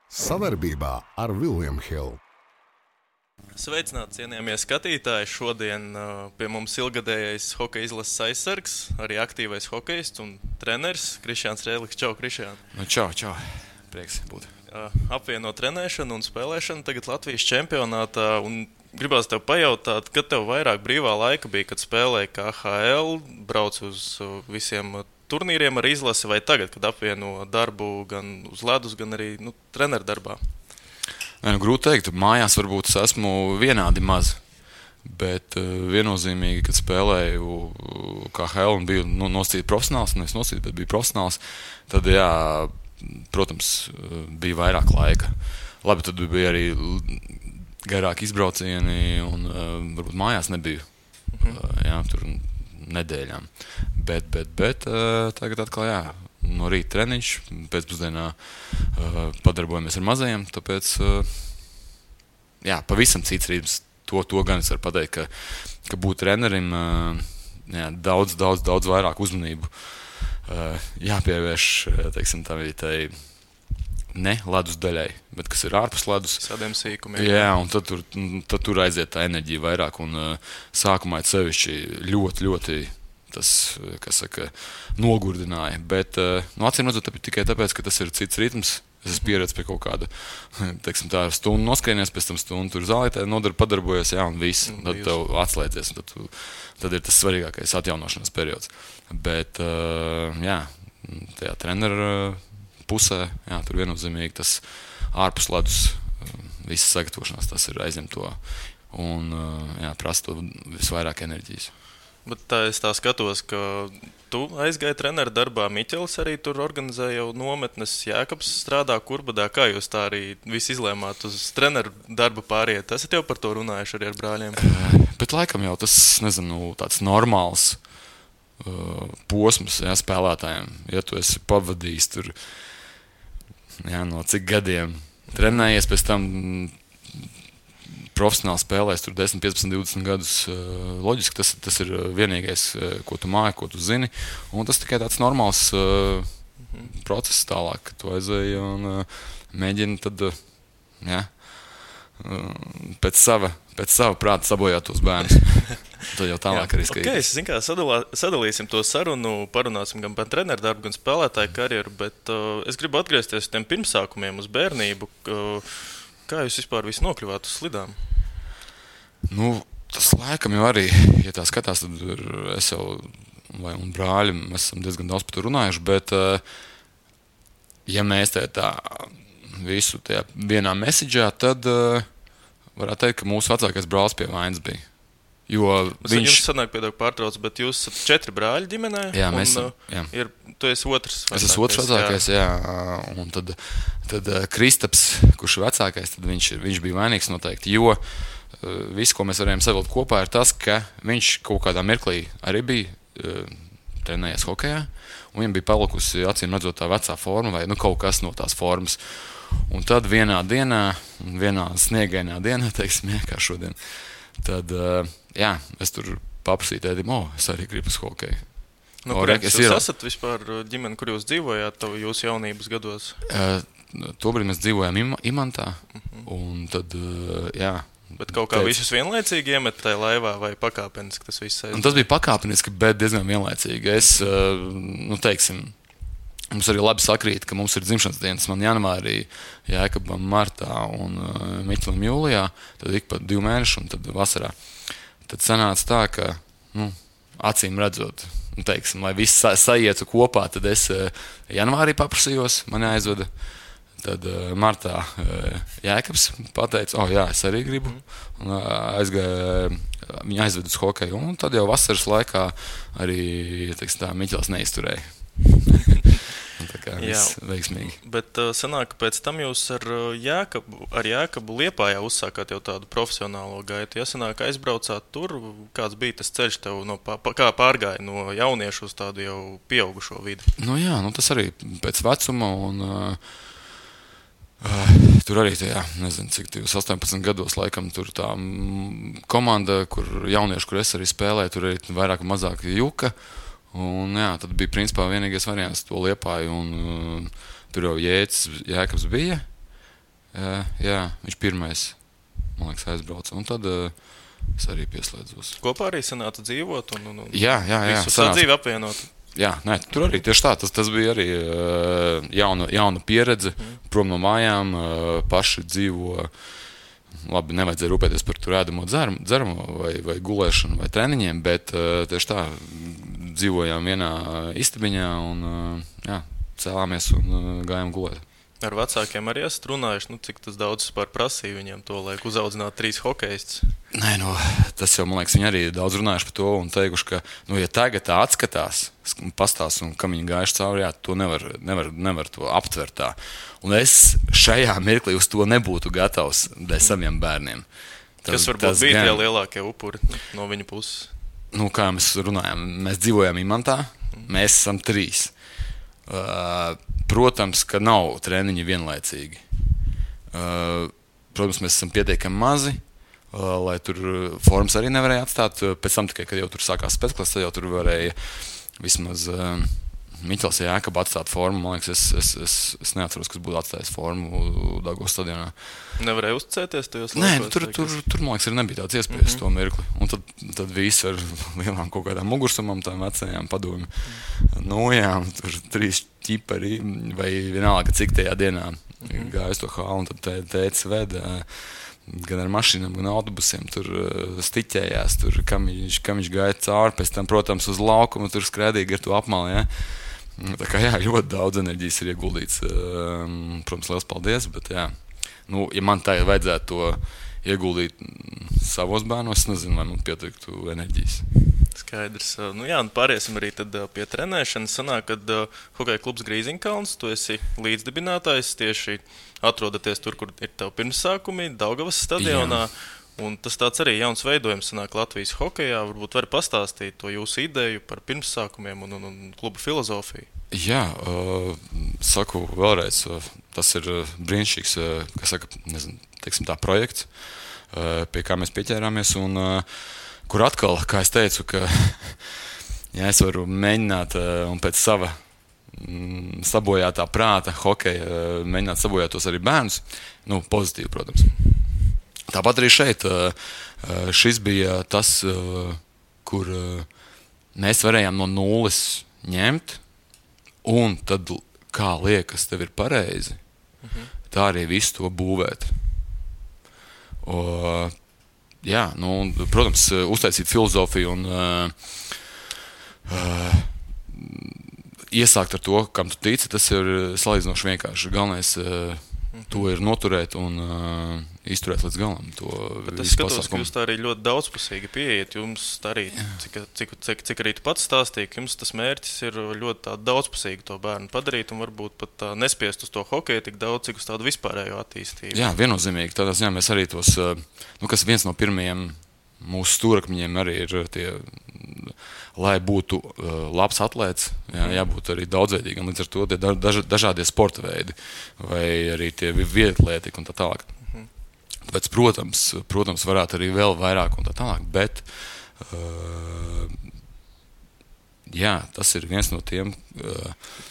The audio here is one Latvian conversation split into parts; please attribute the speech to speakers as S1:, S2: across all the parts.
S1: Sadarbībā ar William Hill.
S2: Sveicināti, cienījamie skatītāji! Šodien pie mums ilgadējais hokeja izlases aizsargs, arī aktīvais hokejists un treneris Krišjāns Rēliks. Čau, Krišjān!
S3: Čau! Prieks būt.
S2: Apvieno trenēšanu un spēlēšanu tagad Latvijas čempionātā. Un gribās tev pajautāt, kad tev vairāk brīvā laika bija, kad spēlēji KHL, brauc uz visiem turnīriem ar izlasi, vai tagad, kad apvieno darbu gan uz ledus, gan arī treneru darbā?
S3: Grūti teikt, mājās varbūt es esmu vienādi maz, bet viennozīmīgi, kad spēlēju KHL un biju nosacīti profesionāls, nevis nosacīti, bet biju profesionāls, tad jā, protams, bija vairāk laika. Labi, tad bija arī garāki izbraucieni un varbūt mājās nebiju, jā, tur nedēļām. Bet tagad atkal, jā, no rīta treniņš, pēcpusdienā padarbojamies ar mazajiem, tāpēc, jā, pavisam cits rītums. To gan es varu pateikt, ka būt trenerim, jā, daudz vairāk uzmanību jāpievērš, teiksim, tai ne ledus daļai, bet kas ir ārpus ledus.
S2: Tādiem sīkumiem.
S3: Jā, un tad tur aiziet tā enerģija vairāk, un sākumā sevišķi ļoti tas, kas saka, nogurdināja, bet acīm redzot tikai tāpēc, ka tas ir cits ritms. Es esmu pieredzējis pie kaut kāda, teiksim, tā stundu noskrienies, pēc tam stundu tur zālītē padarbojies, jā, un viss, un tad tev atslēdzies, un tad ir tas svarīgākais atjaunošanas periods. Bet, jā, tajā treneru pusē, jā, tur viennozīmīgi tas ārpus ledus visas sagatavošanās, tas ir aizņem to, un, jā, prasa to visvairāk enerģijas.
S2: Bet tā es tā skatos, ka tu aizgāji treneru darbā, Miķelis arī tur organizē jau nometnes, Jēkabs strādā Kurbadā. Kā jūs tā arī visi izlēmāt uz treneru darbu pāriet? Esat jau par to runājuši arī ar brāļiem?
S3: Bet laikam jau tas, nezinu, tāds normāls posms, jā, spēlētājiem. Ja tu esi pavadījis tur, jā, no cik gadiem trenējies, pēc tam profesionāli spēlēs tur 10, 15, 20 gadus, loģiski tas ir vienīgais, ko tu māji, ko tu zini, un tas tikai tāds normāls process tālāk, ka tu aizēji un mēģini tad, jā, pēc sava prāta sabojāt tos bērnus. Tad jau tālāk arī skaitīt.
S2: Okay, es zinu, kā sadalīsim to sarunu, parunāsim gan par treneru darbu, gan spēlētāju karjeru, bet es gribu atgriezties uz tiem pirmsākumiem, uz bērnību. Kā jūs vispār visi nokļuvāt uz slidām?
S3: Tas laikam jau arī, ja tā skatās, tad es jau un brāļi, mēs esam diezgan daudz par to runājuši, bet ja mēs tā visu tajā vienā mesiģā, tad varētu teikt, ka mūsu vecākais brālis pie vainas bija. Jo viņš...
S2: Jums sanāk pēdāk pārtrauc, bet jūs esat 4 brāļi ģimenē?
S3: Jā, mēs esam, jā.
S2: Tu esi otrs vecākais.
S3: Es esmu otrs vecākais, jā. Un tad Kristaps, kurš ir vecākais, tad viņš bija vainīgs noteikti, jo viss, ko mēs varējām savilkt kopā, ir tas, ka viņš kaut kādā mirklī arī bija trenējies hokejā, un viņam bija palikusi, acīm redzot, tā vecā forma vai kaut kas no tās formas. Un tad vienā sniegainā dienā, teiksim, kā šodien, tad, jā, es tur paprasīju tēdim, es arī gribu uz hokeju.
S2: Jūs esat vispār ģimeni, kur jūs dzīvojāt jūsu jaunības gados?
S3: Tobrīd mēs dzīvojām Imantā, un tad, jā.
S2: Bet kaut kā visus vienlaicīgi iemet tajā laivā vai pakāpeniski tas viss aiziet?
S3: Un tas bija pakāpeniski, bet diezgan vienlaicīgi. Es, teiksim, mums arī labi sakrīt, ka mums ir dzimšanas dienas. Man janvārī, Jēkabam martā un Miķelim jūlijā, tad ik pa 2 mēnešu un tad vasarā. Tad sanāca tā, ka, acīm redzot, teiksim, lai viss saietu kopā, tad es janvārī paprasījos, mani aizveda. Tad martā Jēkabs pateica, jā, es arī gribu, un viņa aizved uz hokeju, un tad jau vasaras laikā arī, teiksim tā, Miķels neizturēja. Tā kā viss veiksmīgi.
S2: Bet sanāk, ka pēc tam jūs ar Jēkabu Liepājā uzsākāt jau tādu profesionālo gaitu. Ja sanāk, aizbraucāt tur, kāds bija tas ceļš tev, kā pārgāja no jauniešu uz tādu jau pieaugušo vidi?
S3: Jā, tas arī pēc vecuma, un tur arī tajā, nezinu, cik 18 gados laikam tur tā komanda, kur jaunieši, kur es arī spēlēju, tur arī vairāk un mazāk juka. Un jā, tad bija principā vienīgais variants to Liepāju, un tur jau Jēkabs bija, Jā, viņš pirmais, man liekas, aizbrauca. Un tad es arī pieslēdzos.
S2: Kopā arī sanāca dzīvot un
S3: Jā.
S2: visu sadzīvi apvienot.
S3: Jā, nē, tur arī tieši tā. Tas bija arī jauna pieredze, prom no mājām, paši dzīvo. Labi, nevajadzēja rūpēties par tur ēdamo dzeramo vai gulēšanu vai treniņiem, bet tieši tā, dzīvojām vienā istabiņā un cēlāmies un gājām gulēt.
S2: Ar vecākiem arī esat runājuši, cik tas daudz par prasīja viņiem to, lai uzaudzinātu 3 hokejistus.
S3: Nē, tas jau, man liekas, viņi arī daudz runājuši par to un teikuši, ka, ja tagad tā atskatās, pastāst un kam viņi gājuši cauri, to nevar to aptvert tā. Un es šajā mirklī uz to nebūtu gatavs dēļ saviem bērniem.
S2: Kas varbūt bija tie lielākie upuri no viņa puses?
S3: Kā mēs runājam, mēs dzīvojam Imantā, mēs esam 3. Protams, ka nav treniņi vienlaicīgi. Protams, mēs esam pietiekami mazi, lai tur formas arī nevarēja atstāt. Pēc tam tikai, kad jau tur sākās spēcklases, tad jau tur varēja vismaz Miķels Jākaba atstāt formu. Man liekas, es neatceros, kas būtu atstājis formu Daugavas stadionā.
S2: Nevarēja uzticēties tajos
S3: laikos? Nē, tur, man liekas, arī nebija tāds iespējas to mirkli. Un tad visi ar lielām kaut kādām mugursumām, tām vecajām padomju nojām, tur 3 ķipari vai vienalga, cik tajā dienā gāja uz to hālu, un tad tētis veda gan ar mašīnām, gan autobusiem, tur stiķējās, tur, kam viņš gāja cauri, pēc tam, protams, uz laukumu, tur skrēdīgi ar to apmali, ja. Tā kā, ļoti daudz enerģijas ir ieguldīts, protams, liels paldies, bet, ja man tagad vajadzētu to ieguldīt savos bērnos, es nezinu, vai man pietiktu enerģijas.
S2: Skaidrs. Pāriesim arī tad pie trenēšanas. Sanāk, kad hokeja klubs Grīziņkalns, tu esi līdzdibinātājs, tieši atrodaties tur, kur ir tev pirmsākumi, Daugavas stadionā. Jā. Un tas tāds arī jauns veidojums sanāk Latvijas hokejā. Varbūt vari pastāstīt to jūsu ideju par pirmsākumiem un kluba filozofiju.
S3: Jā, saku vēlreiz, tas ir brīnišķīgs, teiksim tā, projekts, pie kā mēs pieķērāmies un kur atkal, kā es teicu, ka es varu mēģināt un pēc sava sabojātā prāta hokeja mēģināt sabojāt tos arī bērnus, pozitīvi, protams. Tāpat arī šeit šis bija tas, kur mēs varējām no nulles ņemt, un tad, kā liekas, tev ir pareizi, tā arī visu to būvēt. Jā, protams, uztaisīt filozofiju un iesākt ar to, kam tu tici, tas ir salīdzinoši vienkārši. Galvenais to ir noturēt un izturēt līdz galam.
S2: Bet es skatos, ka jūs tā arī ļoti daudzpusīgi pieejat. Jums arī, cik arī tu pats stāstīji, ka jums tas mērķis ir ļoti tā daudzpusīgi to bērnu padarīt un varbūt pat nespiest uz to hokeju tik daudz, cik uz tādu vispārējo attīstību. Jā,
S3: viennozīmīgi. Tādā ziņā mēs arī tos, kas viens no pirmajiem mūsu stūrakmeņiem arī ir tie, lai būtu labs atlēts, jābūt arī daudzveidīgam, līdz ar to tie dažādie sporta veidi vai arī tie vietlētīgi un tā tālāk. Tāpēc, protams, varētu arī vēl vairāk un tā tālāk, bet tas ir viens no tiem.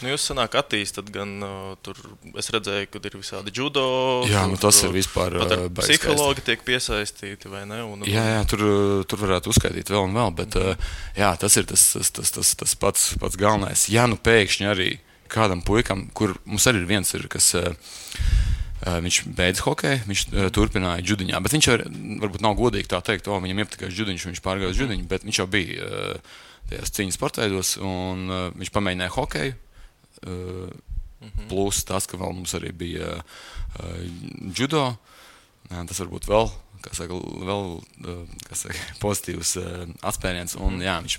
S2: Jūs sanāk attīstat gan tur, es redzēju, kad ir visādi judo.
S3: Jā, tas ir vispār
S2: psihologi tiek piesaistīti, vai ne?
S3: Jā, tur varētu uzskaitīt vēl un vēl, bet tas ir tas pats galvenais. Ja pēkšņi arī kādam puikam, kur mums arī ir viens, kas viņš beidz hokeju, viņš turpināja judiņā, bet viņš varbūt nav godīgi tā teikt, viņam iepatikās judiņš, viņš pārgāja uz judiņu, bet viņš jau bija tajās cīņas sportveidos, un viņš pamēģināja hokeju, plus tas, ka vēl mums arī bija judo, tas varbūt vēl, pozitīvs atspēriens, un viņš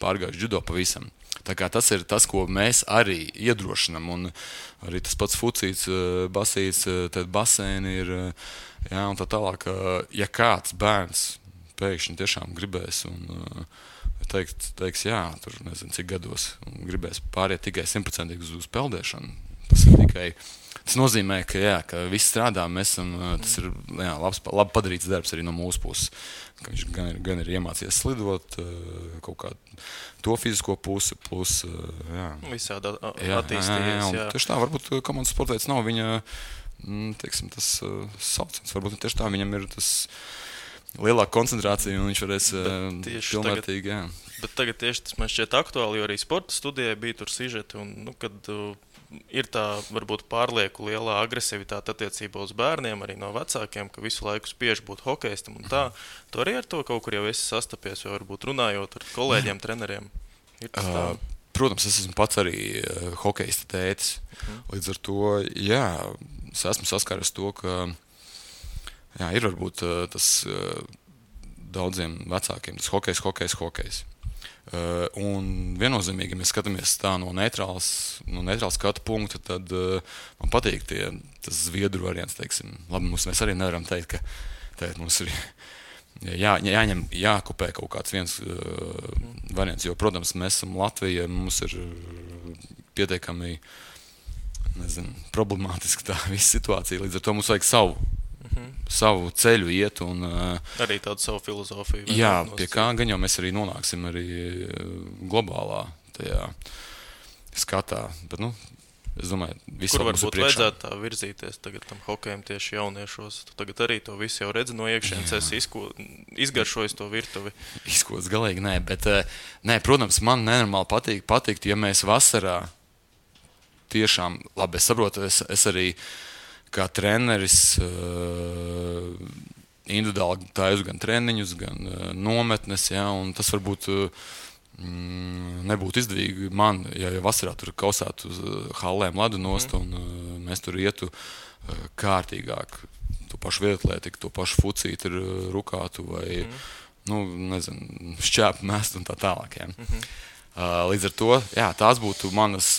S3: pārgāja judo pavisam. Tā kā tas ir tas, ko mēs arī iedrošinam, un arī tas pats fucīts, basīts, tad basēni ir, un tā tālāk, ja kāds bērns pēkšņi tiešām gribēs un teiks, tur nezinu cik gados, un gribēs pāriet tikai 100% uz peldēšanu, tas nozīmē, ka viss strādā, mēs esam, tas ir labi padarīts darbs arī no mūsu puses. Ka viņš gan ir iemācījies slidot, kaut kā to fizisko pusi, plus,
S2: visādi attīstījies,
S3: Tieši tā, varbūt komandas sportveids nav viņa teiksim, tas sauciens. Varbūt tieši tā viņam ir tas lielāka koncentrācija, un viņš varēs pilnvērtīgi. Jā.
S2: Bet tagad tieši tas man šķiet aktuāli, jo arī sporta studijai bija tur sižeti, un kad ir tā varbūt pārlieku lielā agresivitāte attiecībā uz bērniem, arī no vecākiem, ka visu laiku spiež būt hokejistam un tā. Tu arī ar to kaut kur jau esi sastapies, vai varbūt runājot ar kolēģiem, treneriem? Ir tas tā?
S3: Protams, es esmu pats arī hokejista tētis. Līdz ar to, jā, es esmu saskaries to, ka jā, ir varbūt tas daudziem vecākiem, tas hokejs. Un viennozīmīgi, ja mēs skatāmies tā no neitrāla skatu punkta, tad man patīk tas zviedru variants, teiksim. Labi, mēs arī nevaram teikt, ka mums ir jākopē kaut kāds viens variants, jo, protams, mēs esam Latvija, mums ir pietiekami, problemātiski tā visa situācija, līdz ar to mums vajag savu ceļu iet un
S2: arī tādu savu filozofiju.
S3: Jā, pie kā gan jau mēs arī nonāksim arī globālā tajā skatā, bet, es domāju, visu
S2: kur
S3: mums ir
S2: varbūt
S3: priekšā.
S2: vajadzētu tā virzīties tagad tam hokejam tieši jauniešos? Tu tagad arī to visu jau redzi no iekšienes, esi izgaršojis to virtuvi.
S3: Izkots galīgi, nē, bet, protams, man nenormāli patikt, ja mēs vasarā tiešām, labi, es saprotu, es arī kā treneris individuāli taisu gan treniņus, gan nometnes, ja, un tas varbūt nebūtu izdevīgi man, ja vasarā tur kausētu uz hallēm ledu nost, un mēs tur ietu kārtīgāk, to pašu vietlētiku, to pašu fucīti ir rukātu vai, šķēpu mest un tā tālāk. Ja. Līdz ar to, jā, tās būtu manas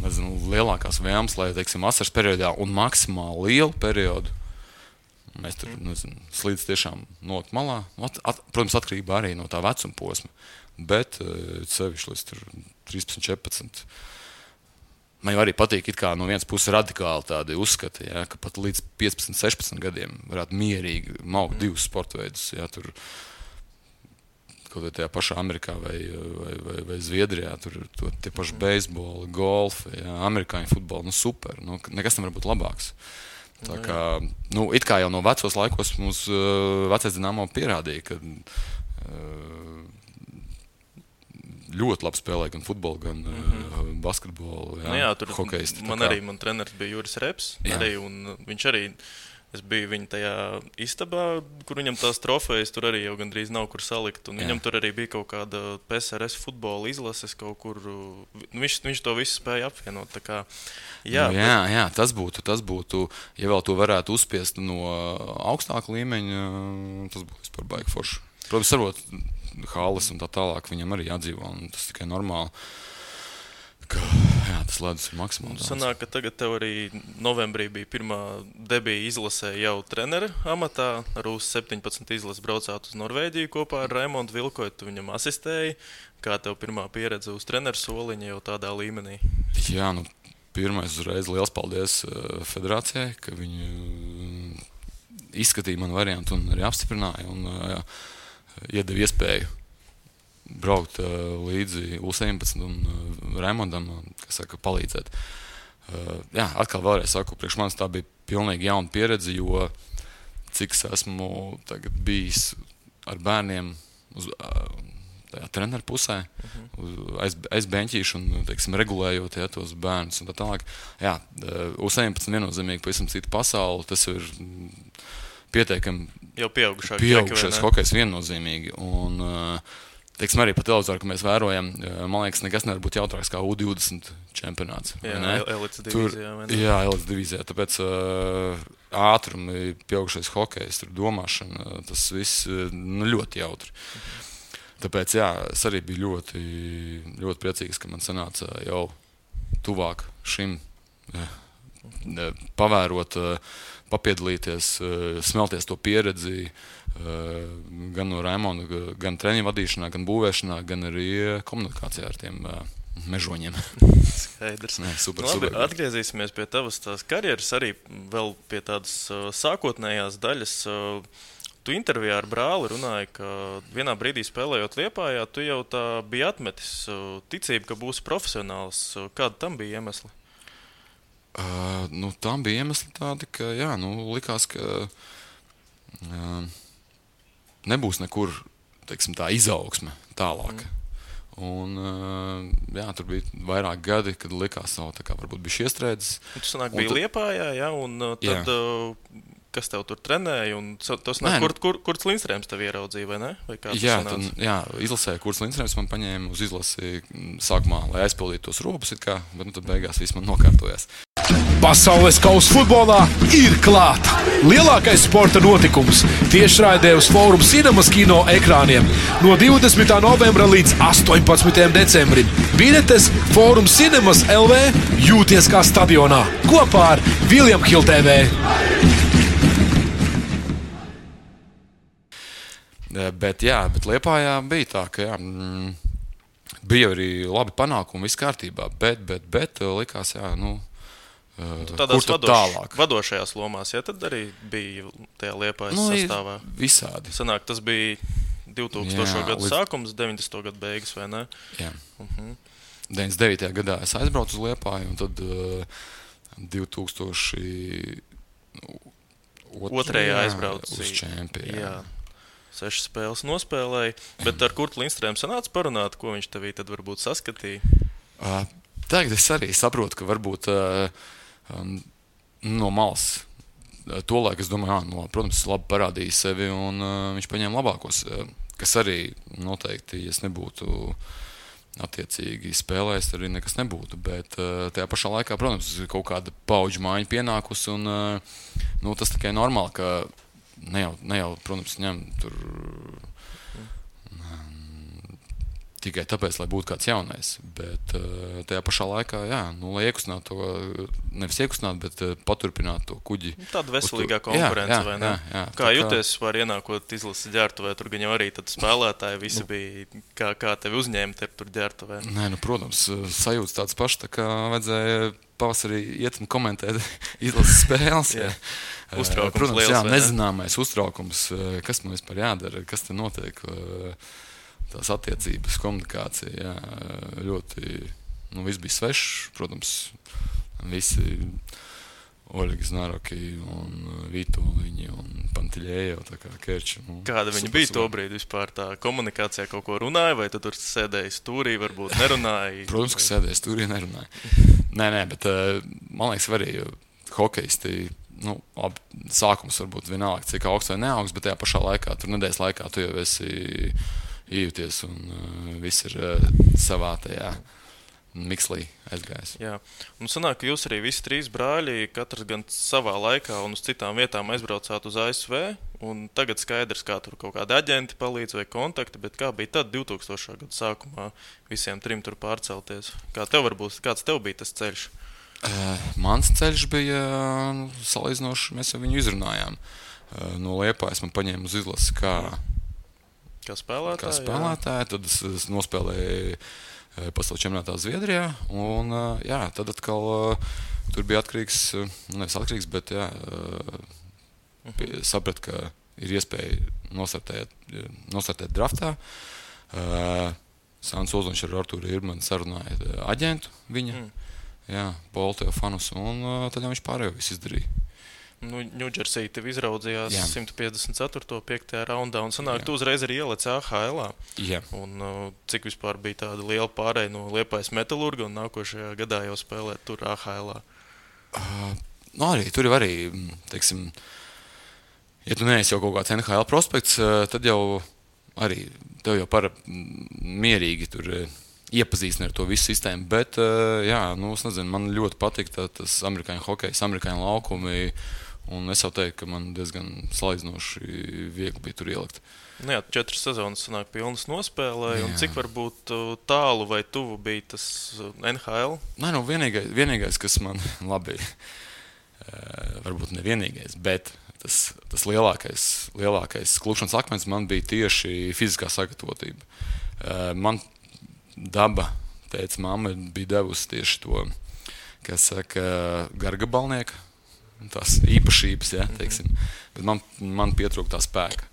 S3: lielākās vēlmes, lai, teiksim, vasaras periodā un maksimāli lielu periodu mēs tur, slīdz tiešām nolikt malā. Protams, atkarībā arī no tā vecuma posma, bet sevišķi līdz 13, 14. Man jau arī patīk it kā no vienas puses radikāli tādi uzskati, ja, ka pat līdz 15, 16 gadiem varētu mierīgi maukt divus sporta veidus, ja, tur kaut vai tajā pašā Amerikā vai Zviedrijā, tur tie paši beisboli, golfi, jā, amerikāņu futboli, super, nekas nevar būt labāks. Tā kā, it kā jau no vecos laikos mums vecais Dinamo pierādīja, ka ļoti labi spēlē gan futbolu, gan basketbolu, hokejisti.
S2: Man treneris bija Juris Reps, arī, un viņš arī, es biju viņa tajā istabā, kur viņam tās trofejas tur arī jau gandrīz nav kur salikt, un viņam tur arī bija kaut kāda PSRS futbola izlases kaut kur, viņš to visu spēja apvienot, tā kā, jā.
S3: Jā, tas būtu, ja vēl to varētu uzspiest no augstāka līmeņa, tas būtu vispār baigi forši. Protams, sarot halles un tā tālāk, viņam arī jādzīvo, un tas tikai normāli. Jā, tas ledus ir maksimāli daudz.
S2: Sanāk, ka tagad tev arī novembrī bija pirmā debija izlasē jau trenera amatā. Ar U17 izlases braucāt uz Norvēģiju kopā ar Raimondu Vilkoju. Tu viņam asistēji. Kā tev pirmā pieredze uz treneru soliņa jau tādā līmenī?
S3: Jā, pirmais uzreiz liels paldies federācijai, ka viņi izskatīja manu variantu un arī apstiprināja un iedeva iespēju braukt līdzi U17 un Raimondam, palīdzēt. Jā, atkal vēlreiz saku, priekš manis tā bija pilnīgi jauna pieredze, jo cik es esmu tagad bijis ar bērniem uz tajā treneru pusē, aiz beņķīšu un, teiksim, regulējot tos bērnus un tā tālāk. Jā, U17 viennozīmīgi pavisam cita pasaule, tas ir pietiekami
S2: jau pieaugušais
S3: hokejs viennozīmīgi. Un, teiksim, arī pa televizoru, ka mēs vērojam, man liekas, nekas nevar būt jautrāks kā U20 čempionāts.
S2: Jā, elites divīzijā.
S3: Jā, elites divīzijā. Tāpēc ātrumi, pieaugušais hokejs, tur domāšana, tas viss ļoti jautri. Tāpēc, jā, es arī biju ļoti, ļoti priecīgs, ka man sanāca jau tuvāk šim pavērot, papiedalīties, smelties to pieredzi, gan no Raimonda, gan treniņu vadīšanā, gan būvēšanā, gan arī komunikācijā ar tiem mežoņiem.
S2: Skaidrs.
S3: Super.
S2: Atgriezīsimies pie tavas tās karjeras, arī vēl pie tādas sākotnējās daļas. Tu intervijā ar brāli runāji, ka vienā brīdī spēlējot Liepājā, tu jau tā biji atmetis ticību, ka būsi profesionāls. Kāda tam bija iemesli?
S3: Tam bija iemesli tādi, ka likās, ka nebūs nekur tā izaugsme tālāk. Un, tur bija vairāk gadi, kad likās, ka varbūt bija iestrēdzis.
S2: Tas bija Liepājā, ja? Un tad, kas tev tur trenēja? Kurts Lindstrēms tev ieraudzīja, vai ne? Vai
S3: izlasēja Kurts Lindstrēms, man paņēma uz izlasi sākumā, lai aizpildītu tos robus, bet tad beigās viss man nokārtojās.
S4: Pasaules kausa futbolā ir klāta. Lielākais sporta notikums tiešraidē uz Forum Cinemas kino ekrāniem no 20. novembra līdz 18. decembrim. Biļetes Forum Cinemas LV jūties kā stadionā kopā ar William Hill TV.
S3: Bet Liepājā bija tā, ka bija arī labi panākumi, viss kārtībā, bet likās,
S2: tādās vadošajās lomās, tad arī bija tajā Liepājas sastāvā.
S3: Visādi.
S2: Sanāk, tas bija 2000. Gadu sākums, 90. Gadu beigas, vai ne?
S3: Jā. 99. gadā es aizbraucu uz Liepāju, un tad 2002.
S2: aizbraucu
S3: uz čempionu.
S2: Jā. 6 spēles nospēlēja, bet ar Kurtu Lindstrēmu sanāca parunāt, ko viņš tevī tad varbūt saskatīja?
S3: Tagad es arī saprotu, ka varbūt no malas tolaik es domāju, protams, labi parādīja sevi un viņš paņēma labākos, kas arī noteikti, ja es nebūtu attiecīgi spēlējis, arī nekas nebūtu, bet tajā pašā laikā, protams, kaut kāda paudžu maiņa pienākusi un tas tikai normāli, ka ne jau, protams, ņem tur tikai tāpēc, lai būtu kāds jaunais, bet tajā pašā laikā, lai iekustinātu to, nevis iekustinātu, bet paturpinātu to kuģi.
S2: Tāda veselīgā konkurence, vai ne? Jā. Kā jūties var ienākot izlases ģērbtuvē, tur gan jau arī tad spēlētāji visi bija, kā tevi uzņēma tur ģērbtuvē?
S3: Nē, protams, sajūtas tāds pašs, tā kā vajadzēja pavasarī iet un komentēt izlases spēles.
S2: Uztraukums
S3: protams,
S2: liels,
S3: nezināmais uztraukums, kas man vispār jādara, kas te notiek, tās attiecības, komunikācija, ļoti, viss bija svešs, protams, visi Oļegi Znaroki un Vitoļiņi un Pantiļējo, tā kā Kerči.
S2: Kāda viņa bija to brīdi vispār, tā komunikācijā kaut ko runāja, vai tu tur sēdēji stūrī, varbūt nerunāji?
S3: Protams, ka sēdēji stūrī, nerunāji. Nē, bet man liekas arī hokejisti, sākums varbūt vienalga, cik augsts vai neaugsts, bet tajā pašā laikā, tur nedēļas laikā tu jau esi ījūties un viss ir savā tajā mikslī aizgājis.
S2: Jā, un sanāk, ka jūs arī visi 3 brāļi, katrs gan savā laikā un uz citām vietām aizbraucāt uz ASV, un tagad skaidrs, kā tur kaut kādi aģenti palīdz vai kontakti, bet kā bija tad 2000. Gadu sākumā visiem 3 tur pārcelties? Kāds tev bija tas ceļš?
S3: Mans ceļš bija salīdzinoši, mēs jau viņu izrunājām. No Liepājas man paņēma uz izlasi
S2: kā spēlētāji,
S3: tad es nospēlēju pasaules čempionātā Zviedrijā, un tad atkal tur bija nevis atkarīgs, bet sapratu, ka ir iespēja nostartēt draftā. Sāns Ozoliņš ar Artūru Irmanu sarunāja aģentu viņa, Polu Teofanus, un tad viņš pārējo visu izdarīja.
S2: Ņūdžersī tev izraudzījās 154. 5. raundā, un sanāk, tu uzreiz arī ielec AHL-ā.
S3: Jā.
S2: Un cik vispār bija tāda liela pārēja no Liepājas Metalurga, un nākošajā gadā jau spēlēt tur AHL-ā?
S3: Tur jau arī, teiksim, ja tu neesi jau kaut kāds NHL prospekts, tad jau arī tev jau mierīgi tur iepazīstina ar to visu sistēmu, bet, es nezinu, man ļoti patīk tas amerikāņu hokejs, amerikāņu laukumi, un es jau teiktu, ka man diezgan salīdzinoši viegli bija tur ielikt.
S2: 4 sezonas sanāk pilnas nospēlēja, un cik varbūt tālu vai tuvu bija tas NHL?
S3: Vienīgais, kas man labi, varbūt nevienīgais, bet tas lielākais klupšanas akmens man bija tieši fiziskā sagatavotība. Man daba, teica, mamma bija devusi tieši to, kas saka, gargabalnieka, tās īpašības, teiksim. Bet man pietrūka tā spēka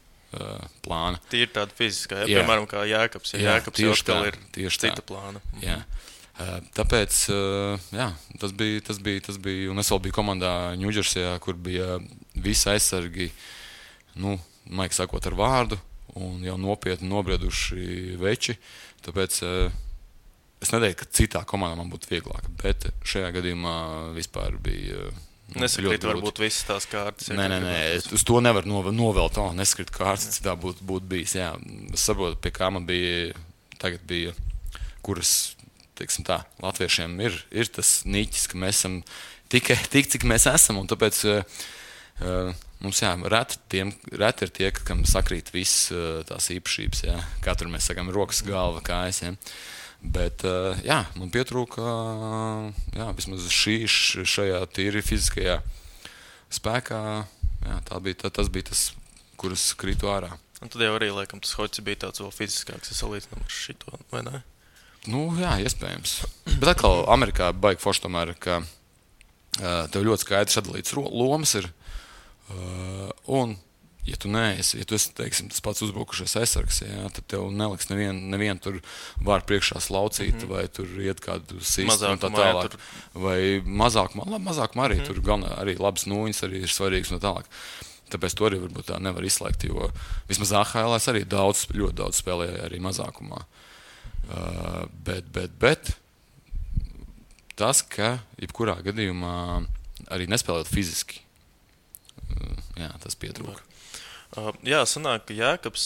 S3: plāna.
S2: Tīri tāda fiziskā, piemēram, kā Jēkabs. Jēkabs jau atkal ir cita plāna.
S3: Jā. Tāpēc, jā, tas bija, un es vēl biju komandā Ņūdžersijā, kur bija visi aizsargi, maigi sakot ar vārdu, un jau nopietni nobrieduši veči, tāpēc es neteiktu, ka citā komandā man būtu vieglāk, bet šajā gadījumā vispār bija
S2: nesakrīt varbūt visas tās kārtas.
S3: Nē, uz to nevar novelt, nesakrīt kārtas, citā būtu bijis, jā. Es saprotu, pie kā man tagad bija, kuras, teiksim tā, latviešiem ir tas niķis, ka mēs esam tik, cik mēs esam, un tāpēc mums, jā, reti ir tie, kam sakrīt viss tās īpašības, jā. Kā tur mēs sakām, rokas, galva, kājas, jā. Bet, jā, man pietrūka, jā, vismaz šajā tīri fiziskajā spēkā, jā, tas bija tas, kuras krītu ārā.
S2: Un tad jau arī, laikam, tas hoķis bija tāds vēl fiziskāks, salīdzinām ar šito, vai ne?
S3: Jā, iespējams. Bet atkal Amerikā baigi forši tomēr, ka tev ļoti skaidrs sadalīts lomas ir, un ja tu esi, teiksim, tas pats uzbrukušais aizsargs, jā, tad tev neliks nevienu tur vār priekšā slaucīt, vai tur iet kādu sistu un tā tālāk. Vai mazākumā arī tur galvenā arī labas nūjiņas arī ir svarīgas un tā tālāk. Tāpēc to arī varbūt tā nevar izslēgt, jo vismaz AHL arī ļoti daudz spēlēja arī mazākumā. Bet tas, ka jebkurā gadījumā arī nespēlēt fiziski, jā, tas pietrūka.
S2: Jā, sanāk, ka Jēkabs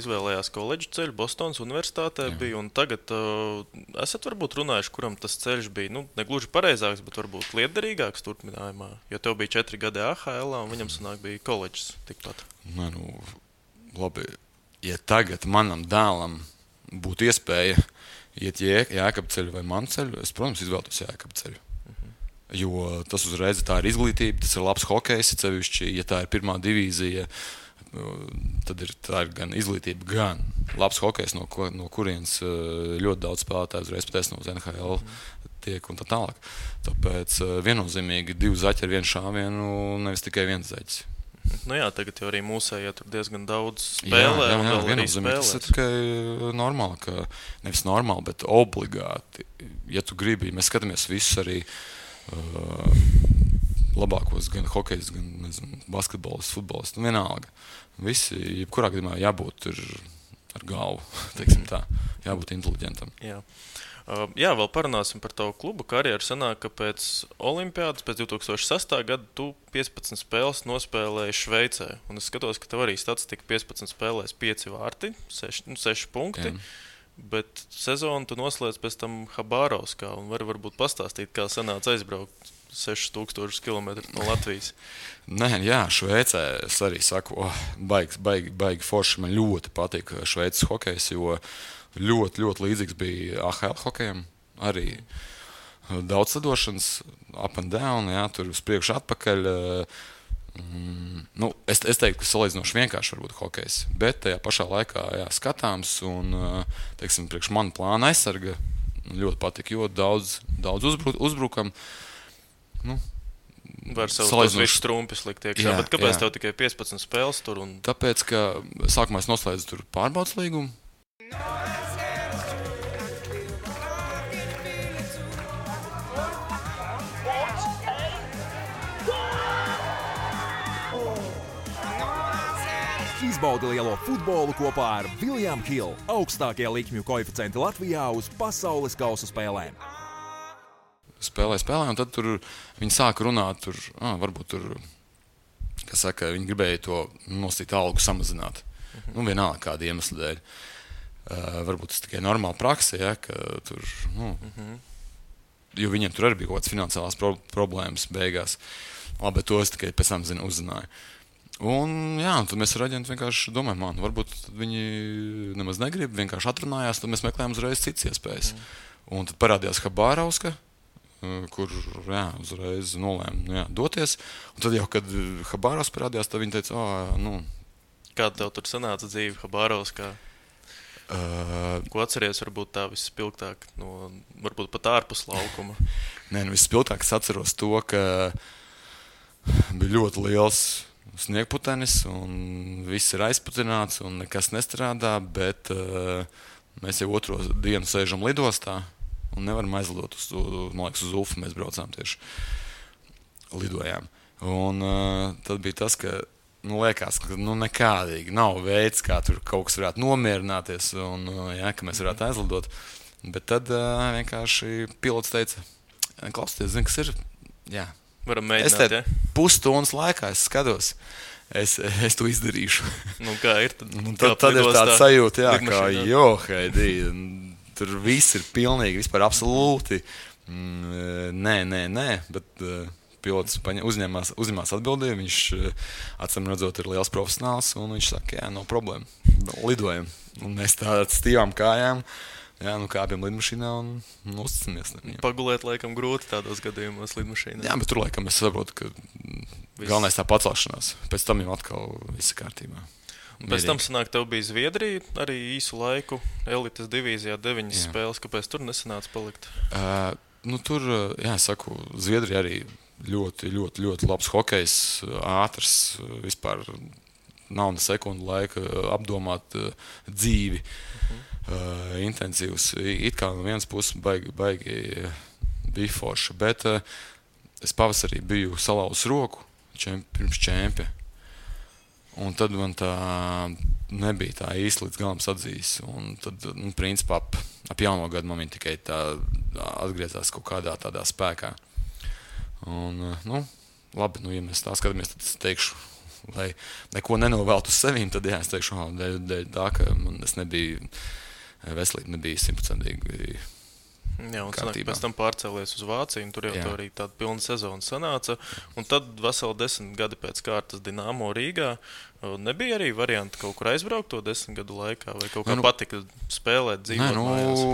S2: izvēlējās koledžu ceļu Bostonas universitātē bija, un tagad esat varbūt runājuši, kuram tas ceļš bija, negluži pareizāks, bet varbūt lietderīgāks turpinājumā, jo tev bija 4 gadi AHL, un viņam sanāk bija koledžas tikpat.
S3: Labi, ja tagad manam dēlam būtu iespēja iet Jēkaba ceļu vai manu ceļu, es, protams, izvēlētos Jēkaba ceļu. Jo tas uzreiz tā ir izglītība, tas ir labs hokejs, sevišķi, ja tā ir pirmā divīzija, tad tā ir gan izglītība, gan labs hokejs, no kurienes ļoti daudz spēlētāju uzreiz pateic no NHL tiek un tā tālāk. Tāpēc viennozīmīgi 2 zaķi ar 1 šāvienu, nevis tikai 1 zaķis.
S2: Jā, tagad jau arī mūsējā tur diezgan daudz spēlē. Jā,
S3: viennozīmīgi tas ir tikai normāli, nevis normāli, bet obligāti. Ja tu gribi, mēs skatāmies visus arī labākos, gan hokejs, gan, nezinu, basketbolis, futbolis, vienalga. Visi, jebkurā gadījumā jābūt ar galvu, teiksim tā, jābūt inteliģentam.
S2: Jā, vēl parunāsim par tavu klubu karjeru. Sanāk, ka pēc olimpiādas, pēc 2006. Gada tu 15 spēles nospēlēji Šveicē. Un es skatos, ka tev arī statistika 15 spēlēs 5 vārti, 6 punkti. Jā. Bet sezonu tu noslēdz pēc tam Habārovskā, un varbūt pastāstīt, kā sanāca aizbraukt 6000 km no Latvijas.
S3: Jā, Šveicē es arī saku, baigi forši, man ļoti patīk Šveices hokejs, jo ļoti, ļoti līdzīgs bija AHL hokejam, arī daudz sadošanas, up and down, jā, tur uz priekšu atpakaļ. Es teiktu, ka salīdzinoši vienkārši varbūt hokejs, bet tajā pašā laikā skatāms un, teiksim, priekš manu plānu aizsarga ļoti patika, jo daudz uzbrukam.
S2: Var savus visus trumpis likt iekšā, bet kāpēc tev tikai 15 spēles tur?
S3: Tāpēc, ka sākumā es noslēdzu tur pārbaudas līgumu.
S5: Izbaudi lielo futbolu kopā ar William Hill, augstākie likmju koeficienti Latvijā uz pasaules kausa spēlēm.
S3: Spēlē, un tad tur viņi sāka runāt, varbūt tur, kas saka, viņi gribēja to nostīt algu samazināt. Vienalga kāda iemesla dēļ. Varbūt tas tikai normāla praksa, ja, ka tur, jo viņiem tur arī bija kaut kāds finansiālās problēmas beigās. Labi, to es tikai pēc tam uzzināju. Un tad mēs ar aģentu vienkārši domājam, varbūt viņi nemaz negrib, vienkārši atrunājās, tad mēs meklējām uzreiz citas iespējas. Un tad parādījās Habārovska, kur uzreiz nolēma doties. Un tad jau, kad Habārovs parādījās, tad viņi teica,
S2: Kāda tev tur sanāca dzīve Habārovskā? Ko atceries varbūt tā vispilgtāk, varbūt pat ārpus laukuma?
S3: Vispilgtāk es atceros to, ka bija ļoti liels sniegputenis, un viss ir aizputināts, un nekas nestrādā, bet mēs jau otro dienu sēžam lidostā, un nevaram aizlidot man liekas, uz Ufu mēs braucām tieši lidojām. Un tad bija tas, ka liekas, ka nekādīgi nav veids, kā tur kaut kas varētu nomierināties un ka mēs varētu aizlidot. Bet tad vienkārši pilots teica, klausieties, zini, kas ir? Jā.
S2: Varam mēģināt, ja?
S3: Pusstundas laikā es skatos. Es to izdarīšu.
S2: Kā ir?
S3: Tad ir tāda sajūta, jā, kā Heidi, tur viss ir pilnīgi, vispār absolūti. Nē, bet pilots uzņemās atbildību, viņš acīm redzot ir liels profesionāls, un viņš saka, jā, nav problēma, lidojam. Un mēs tā stīvām kājām, kāpjam lidmašīnā un uzticamies.
S2: Pagulēt laikam grūti tādos gadījumos lidmašīnā.
S3: Jā, bet tur laikam es saprotu, ka galvenais tā pacelšanās. Pēc tam jau atkal viss kārtībā.
S2: Pēc tam sanāk, tev bija Zviedrija arī īsu laiku, elites divīzijā 9 spēles. Kāpēc tur nesanāca palikt?
S3: Tur, saku, Zviedrija arī ļoti, ļoti, ļoti labs hokejs, ātrs, vispār nav ne sekundu laika apdomāt dzīvi, intensīvs. It kā no vienas puses baigi bija forša, bet es pavasarī biju salauzis roku pirms čempia. Un tad man tā nebija tā īsti līdz galam sadzījis. Un tad, principā, ap jauno gadu man viņa tikai tā atgriezās kaut kādā tādā spēkā. Un, labi, ja mēs tā skatāmies, tad es teikšu, lai neko nenovēltu uz sevīm, tad es teikšu, dēļ tā, ka es nebiju, veselība nebija 100%.
S2: Jā, un sanāk, pēc tam pārcēlies uz Vāciju, un tur jau tā arī tāda pilna sezona sanāca. Un tad veseli 10 gadi pēc kārtas Dinamo Rīgā. Nebija arī varianti kaut kur aizbraukt to 10 gadu laikā, vai kaut kā patika spēlēt, dzīvot mājās?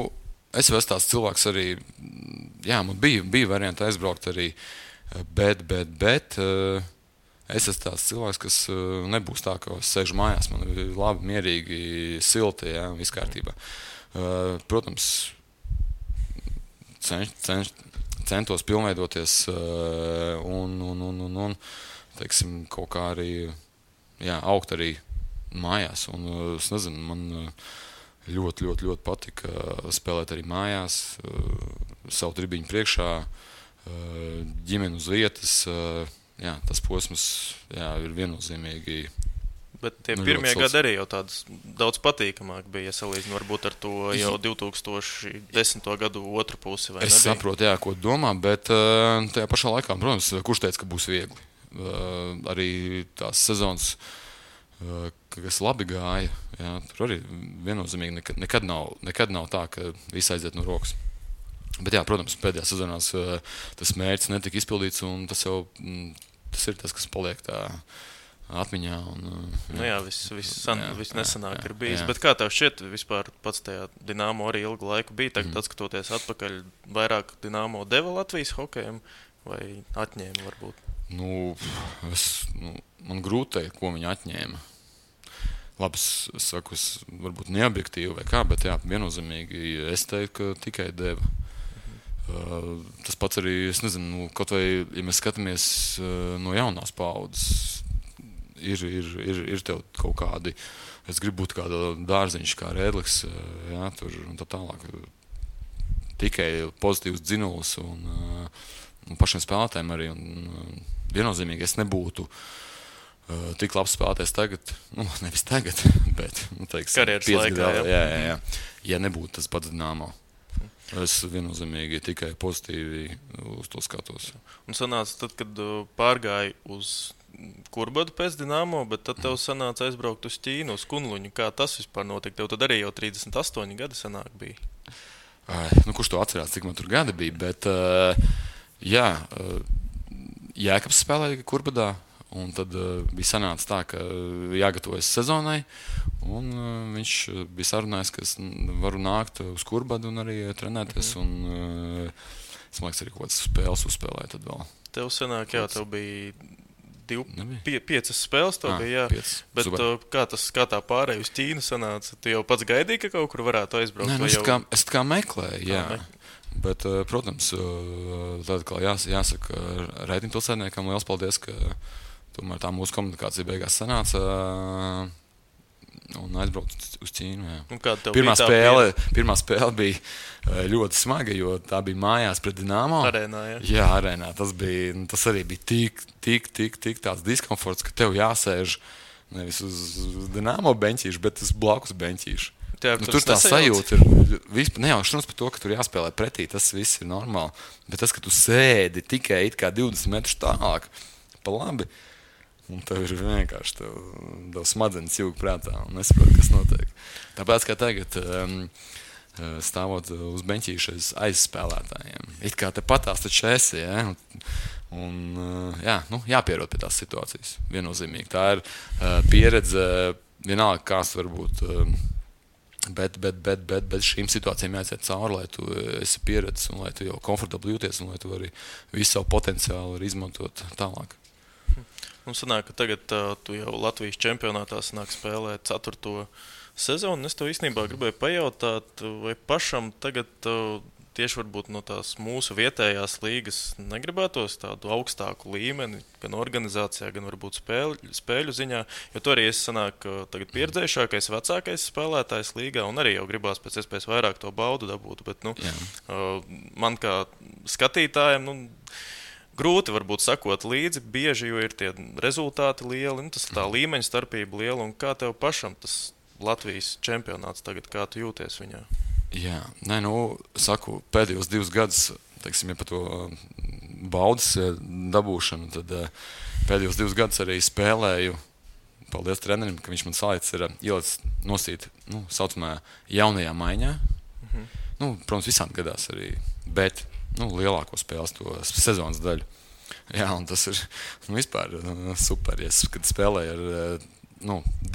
S3: Es esmu tāds cilvēks arī, man bija varianti aizbraukt arī, bet es esmu tāds cilvēks, kas nebūs tā, ka es sēžu mājās, man ir labi, mierīgi, silti, viss kārtībā. Protams, centos pilnveidoties un teiksim, kaut kā arī augt arī mājās. Un es nezinu, man ļoti, ļoti, ļoti patika spēlēt arī mājās, savu tribiņu priekšā, ģimeni uz vietas. Tas posms ir viennozīmīgi.
S2: Bet tie pirmie gadi arī jau tāds daudz patīkamāk bija, ja salīdzinot varbūt ar to jau 2010. gadu otru pusi, vai nebija?
S3: Es saprotu, ko domā, bet tajā pašā laikā, protams, kurš teica, ka būs viegli. Arī tās sezonas, kas labi gāja, tur arī viennozīmīgi nekad nav tā, ka viss aiziet no rokas. Bet protams, pēdējās sezonās tas mērķis netika izpildīts, un tas ir tas, kas paliek tā atmiņā.
S2: Viss nesanāk ir bijis. Bet kā tev šķiet, vispār pats tajā Dinamo arī ilgu laiku bija, tagad atskatoties atpakaļ, vairāk Dinamo deva Latvijas hokejam vai atņēma varbūt?
S3: Man grūti teikt, ko viņi atņēma. Labi, es saku, varbūt neobjektīvi vai kā, bet viennozīmīgi es teiktu, ka tikai deva. Tas pats arī, es nezinu, kaut vai, ja mēs skatāmies no jaunās paaudzes, ir tev kaut kādi, es gribu būt kāda dārziņš kā Rēdlis, tur un tā tālāk. Tikai pozitīvs dzinulis un pašiem spēlētājiem arī. Un viennozīmīgi es nebūtu tik labs spēlētājs tagad, nevis tagad, bet, teiksim,
S2: karjeras laikā,
S3: ja nebūtu tas pats Dinamo. Es viennozīmīgi tikai pozitīvi uz to skatos.
S2: Un sanāca tad, kad pārgāji uz Kurbadu pēc Dinamo, bet tad tev sanāca aizbraukt uz Ķīnu, uz Kunluņu. Kā tas vispār notika? Tev tad arī jau 38 gadi sanāk bija.
S3: Kurš to atcerās, cik man tur gadi bija, bet Jēkabs spēlēja Kurbadā, un tad bija sanāca tā, ka jāgatavojas sezonai, un viņš bija sarunājis, ka es varu nākt uz Kurbadu un arī trenēties, un es liekas arī kaut kādas spēles uzspēlēju tad vēl.
S2: Tev sanāk, tev bija 5 spēles, bija,
S3: 5.
S2: Bet kā tā pārēja uz Ķīnu sanāca? Tu jau pats gaidīji, ka kaut kur varētu aizbraukt?
S3: Es kā meklēju, bet, protams, tad, kā jāsaka reitingpilsētniekam, liels paldies, ka tomēr tā mūsu komunikācija beigās sanāca un aizbraucu uz Ķīnu.
S2: Pirmā
S3: spēle bija ļoti smaga, jo tā bija mājās pret Dinamo.
S2: Arēnā,
S3: jā, arēnā. Tas arī bija tik tāds diskomforts, ka tev jāsēž nevis uz Dinamo beņķīšu, bet uz blakus beņķīšu. Tur tā sajūta ir nejaušanos par to, ka tur jāspēlē pretī, tas viss ir normāli. Bet tas, ka tu sēdi tikai it kā 20 metrus tālāk, pa labi, un tev ir vienkārši tev smadzenes jūg prātā un nesaprot, kas notiek. Tāpēc, kā tagad stāvot uz beņķīša aizspēlētājiem. It kā te patās taču esi, ja? Un jāpierod pie tās situācijas, viennozīmīgi. Tā ir pieredze, vienalga kāds varbūt, bet šīm situācijām jāiziet cauri, lai tu esi pieredzis un lai tu jau komfortabli jūties un lai tu arī visu savu potenciālu var izmantot tālāk.
S2: Un sanāk, ka tagad tu jau Latvijas čempionātā sanāk spēlēt 4. sezonu. Es tev īstenībā gribēju pajautāt, vai pašam tagad tieši varbūt no tās mūsu vietējās līgas negribētos tādu augstāku līmeni, gan organizācijā, gan varbūt spēļu ziņā, jo to arī es sanāku tagad pieredzējušākais, vecākais spēlētājs līgā, un arī jau gribās pēc iespējas vairāk to baudu dabūt, bet man kā skatītājiem, grūti varbūt sakot līdzi, bieži, jo ir tie rezultāti lieli, un tas tā līmeņa starpība liela, un kā tev pašam tas Latvijas čempionāts tagad, kā tu jūties viņā?
S3: Jā, saku, pēdējos 2 gadus, teiksim, ja par to baudas dabūšanu, tad pēdējos 2 gadus arī spēlēju, paldies trenerim, ka viņš man salīdz ir ielicis nosīt, saucamā jaunajā maiņā. Protams, visām gadās arī, bet, lielāko spēles to sezonas daļu. Jā, un tas ir, vispār super, kad spēlēju ar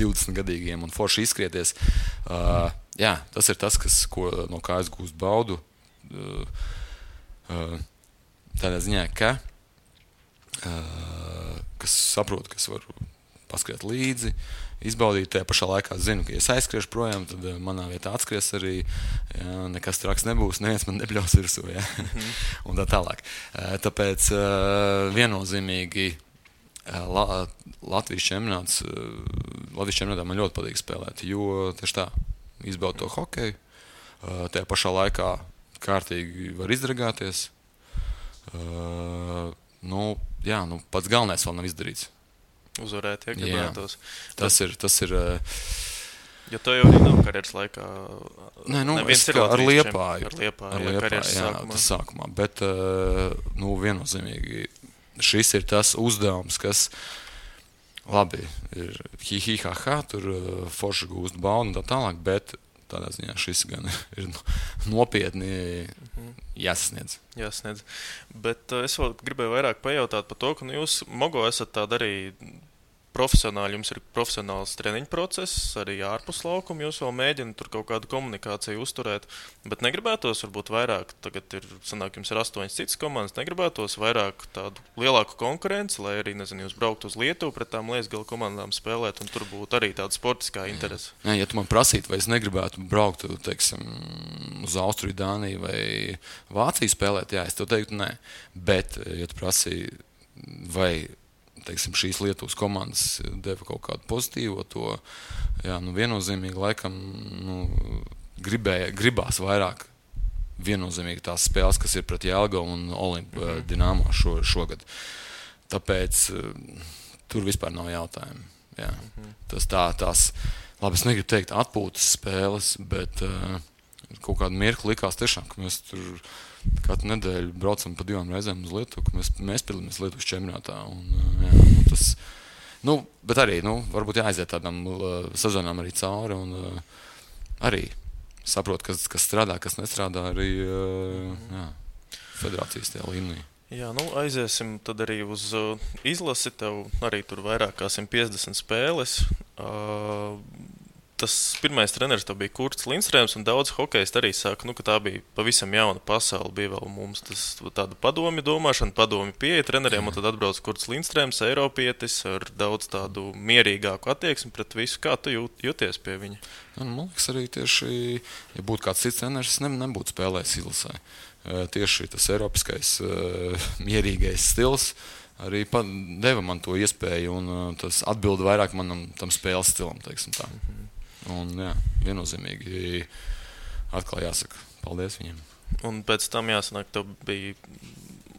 S3: 20-gadīgiem un forši izskrieties. Jā, tas ir tas, no kā es gūstu baudu. Tādā ziņā, kas saprot, ka es varu paskriet līdzi, izbaudīt. Tajā pašā laikā zinu, ka ja es aizskriešu projām, tad manā vietā atskries arī. Jā, nekas traks nebūs, neviens man nebļaus virsū. Jā. Un tā tālāk. Tāpēc viennozīmīgi Latvijas čempionātā man ļoti patīk spēlēt, jo tieši tā, izbaud to hokeju, tajā pašā laikā kārtīgi var izdragāties. Pats galvenais vēl nav izdarīts.
S2: Uzvarēt, ja gribētos.
S3: Tas ir
S2: jo to jau arī nav karjeras laikā.
S3: Ar Liepāju.
S2: Karjeras
S3: sākumā. Bet, viennozīmīgi, šis ir tas uzdevums, kas labi ir hi-hi-ha-ha, tur forši gūst baudu un tā tālāk, bet tādā ziņā šis gan ir nopietni jāsasniedz.
S2: Bet es vēl gribēju vairāk pajautāt par to, ka jūs, Mogo, esat tāda arī profesionāli, jums ir profesionāls treniņu process, arī ārpus laukuma, jūs vēl mēģināt tur kaut kādu komunikāciju uzturēt, bet negribētos varbūt vairāk, tagad jums ir 8 citas komandas, negribētos vairāk tādu lielāku konkurenci, lai arī, jūs brauktu uz Lietuvu pret tām Liesgala komandām spēlēt, un tur būtu arī tāda sportiskā interese.
S3: Ja tu man prasītu, vai es negribētu braukt, teiksim, uz Austriju, Dāniju vai Vāciju spēlēt, jā, es tev teiktu nē, bet, ja tu prasīji, vai teiksim, šīs Lietuvas komandas deva kaut kādu pozitīvo to, viennozīmīgi laikam gribās vairāk viennozīmīgi tās spēles, kas ir pret Jelgavu un Olimpu Dinamo šogad. Tāpēc tur vispār nav jautājumu. Jā. Tās, labi, es negribu teikt atpūtas spēles, bet kaut kādu mirkli likās tiešām, ka mēs tur katru nedēļu braucam pa 2 reizēm uz Lietuvu, ka mēs piedalāmies Lietuvas čempionātā. Bet arī, varbūt jāaiziet tādām sezonām arī cauri un arī saprot, kas strādā, kas nestrādā arī federācijas tajā līmenī.
S2: Jā, aiziesim tad arī uz izlasi, tev arī tur vairāk kā 150 spēles. Tas pirmais treneris bija Kurts Lindstrēms, un daudz hokejisti arī saka, ka tā bija pavisam jauna pasaule. Bija vēl mums tāda padomju domāšana, padomju pieeja treneriem, un tad atbrauc Kurts Lindstrēms, eiropietis, ar daudz tādu mierīgāku attieksmi pret visu. Kā tu jūties pie viņa?
S3: Man liekas, arī tieši, ja būtu kāds cits treneris, nebūtu spēlējis izlasē. Tieši tas eiropiskais mierīgais stils arī deva man to iespēju, un tas atbilda vairāk manam tam spēles stilam, teiksim tā. Un, jā, viennozīmīgi atkal jāsaka paldies viņiem.
S2: Un pēc tam jāsanāk, tev bija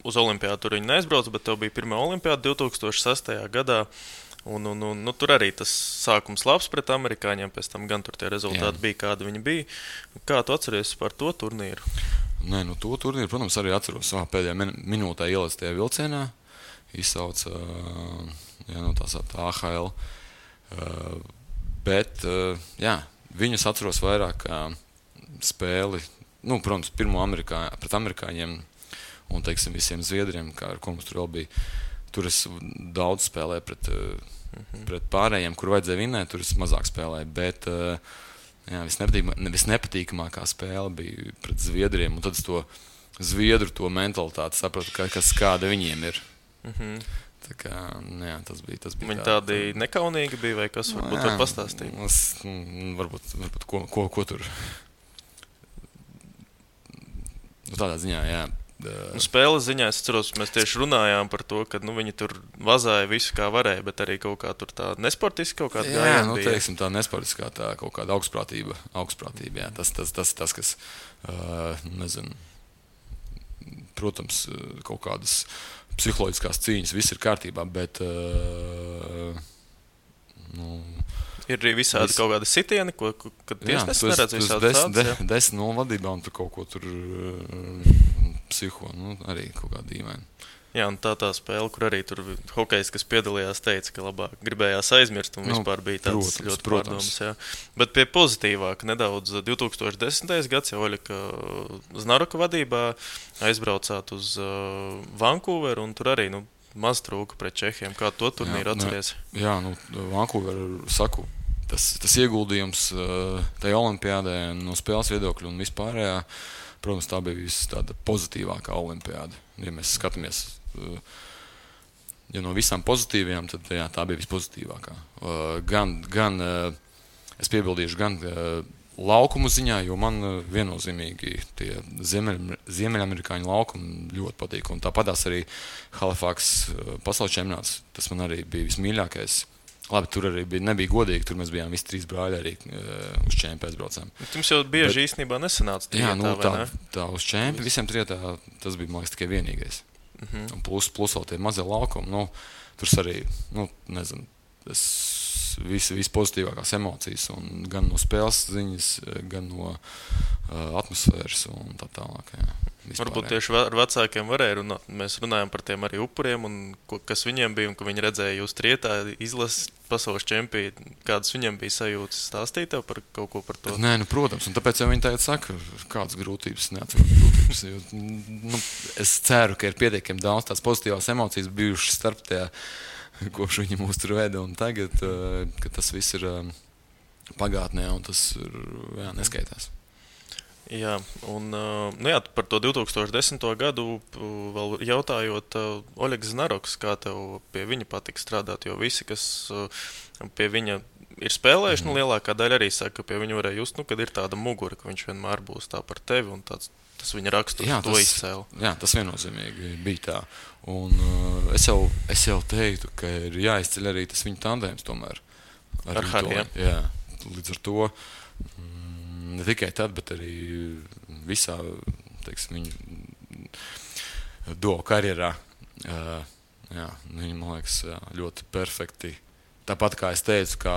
S2: uz olimpiādu tur viņi neaizbrauca, bet tev bija pirmā olimpiāda 2006. gadā. Un, tur arī tas sākums labs pret amerikāņiem, pēc tam gan tur tie rezultāti bija, kādi viņi bija. Kā tu atceries par to turnīru?
S3: Nē, to turnīru, protams, arī atceros savā pēdējā minūtē ielaic tajā vilcienā. Izsauca tā AHL. Bet, jā, viņus atceros vairāk kā spēli, protams, pirmo pret amerikāņiem un, teiksim, visiem zviedriem, kā ar ko mums tur vēl bija. Tur es daudz spēlēju pret pārējiem, kur vajadzēja vinēt, tur es mazāk spēlēju, bet jā, visnepatīkamākā spēle bija pret zviedriem, un tad es to zviedru to mentalitāti sapratu, kāda viņiem ir. Tā kā, jā, tas bija
S2: viņi tādi nekaunīgi bija, vai kas varbūt var pastāstīt?
S3: Varbūt ko tur. Tādā ziņā, jā.
S2: Spēles ziņā es atceros, mēs tieši runājām par to, ka viņi tur vazāja visu kā varēja, bet arī kaut kā tur tā nesportiski kaut kāda gājiena bija.
S3: Jā, teiksim, tā nesportiskā, tā kaut kāda augstprātība, jā. Tas, kas, nezinu, protams, kaut kādas psiholoģiskās cīņas, viss ir kārtībā, bet,
S2: ir arī visādi kaut kādi sitieni, kad tiesnesis neredz visādi tādas.
S3: 10-0 vadībā un tur kaut ko tur psiho, arī kaut kā dīvaini.
S2: Jā, un tā spēle, kur arī tur hokejs, kas piedalījās, teica, ka labāk gribējās aizmirst un vispār bija tāds ļoti pārdomas. Jā. Bet pie pozitīvāk nedaudz 2010. gads jau Oļega Znaroka vadībā aizbraucāt uz Vancouveru un tur arī, maz trūka pret Čehiem. Kā to turnīru atceries?
S3: Jā, Vancouveru saku, tas ieguldījums tajā olimpiādē no spēles viedokļa un vispārējā, protams, tā bija tāda pozitīvākā olimpiāda. Ja mēs skatāmies, ja no visām pozitīvajām, tad jā, tā bija vispozitīvākā. Gan es piebildīšu, gan laukumu ziņā, jo man viennozīmīgi tie ziemeļamerikāņu laukumi ļoti patīk. Un tāpatās arī Halifax pasaules čempionāts, tas man arī bija vismīļākais. Labi, tur arī nebija godīgi, tur mēs bijām visi 3 brāļi arī uz čempi aizbraucām.
S2: Jums jau bieži īstenībā nesanāca
S3: jā, tā uz čempi visiem trietā, tas bija, man liekas, tikai vienīgais. Un plus vēl tie mazie laukumi, tur arī, nezinu, viss pozitīvākās emocijas, un gan no spēles ziņas, gan no atmosfēras un tā tālāk, jā.
S2: Varbūt tieši ar vecākiem varēja runāt. Mēs runājam par tiem arī upuriem, un kas viņiem bija, un ka viņi redzēja jūs trietā izlases pasaules čempī. Kādas viņiem bija sajūtas? Stāstīt tev par kaut ko par to?
S3: Nē, protams, un tāpēc jau viņi tagad saka, kādas grūtības, neatceros grūtības. Jo, es ceru, ka ir pietiekami daudz tās pozitīvās emocijas bijušas starp tajā, kopš viņi mūs tur veda, un tagad, ka tas viss ir pagātnē, un tas ir, neskaitās.
S2: Jā, un par to 2010. gadu vēl jautājot Oļegs Znaroks, kā tev pie viņa patika strādāt, jo visi, kas pie viņa ir spēlējuši, lielākā daļa arī saka, ka pie viņa varēja just, kad ir tāda mugura, ka viņš vienmēr būs tā par tevi, un tas viņa raksturs to izcēla. Jā,
S3: tas viennozīmīgi bija tā. Un es jau teiktu, ka ir jāizceļ arī tas viņa tandēms tomēr.
S2: Ar Hariju.
S3: Jā, līdz ar to ne tikai tad, bet arī visā, teiksim, viņu duo karjerā. Jā, viņi, man liekas, ļoti perfekti. Tāpat kā es teicu, kā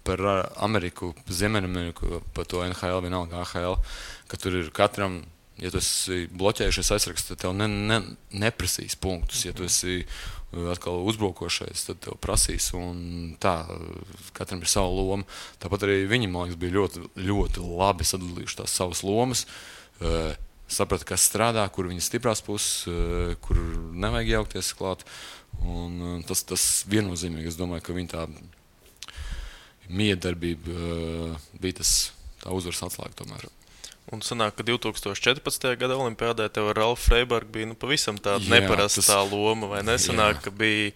S3: par Ameriku, Ziemeļameriku, par to NHL, vienalga AHL, ka tur ir katram, ja tu esi bloķējušies aizraksts, tad tev neprasīs punktus. Ja tu esi atkal uzbrukošais, tad tev prasīs, un tā, katram ir sava loma. Tāpat arī viņi, man liekas, bija ļoti, ļoti labi sadalījuši tās savas lomas, saprata, kas strādā, kur viņas stiprās puses, kur nevajag jaukties klāt, un tas viennozīmīgi, es domāju, ka viņa tā miedarbība bija tā uzvaras atslēga tomēr.
S2: Un sanāk, ka 2014. gada olimpiādē tev ar Ralfu Freibergu bija pavisam tāda neparastā loma, vai nesanāk, ka bija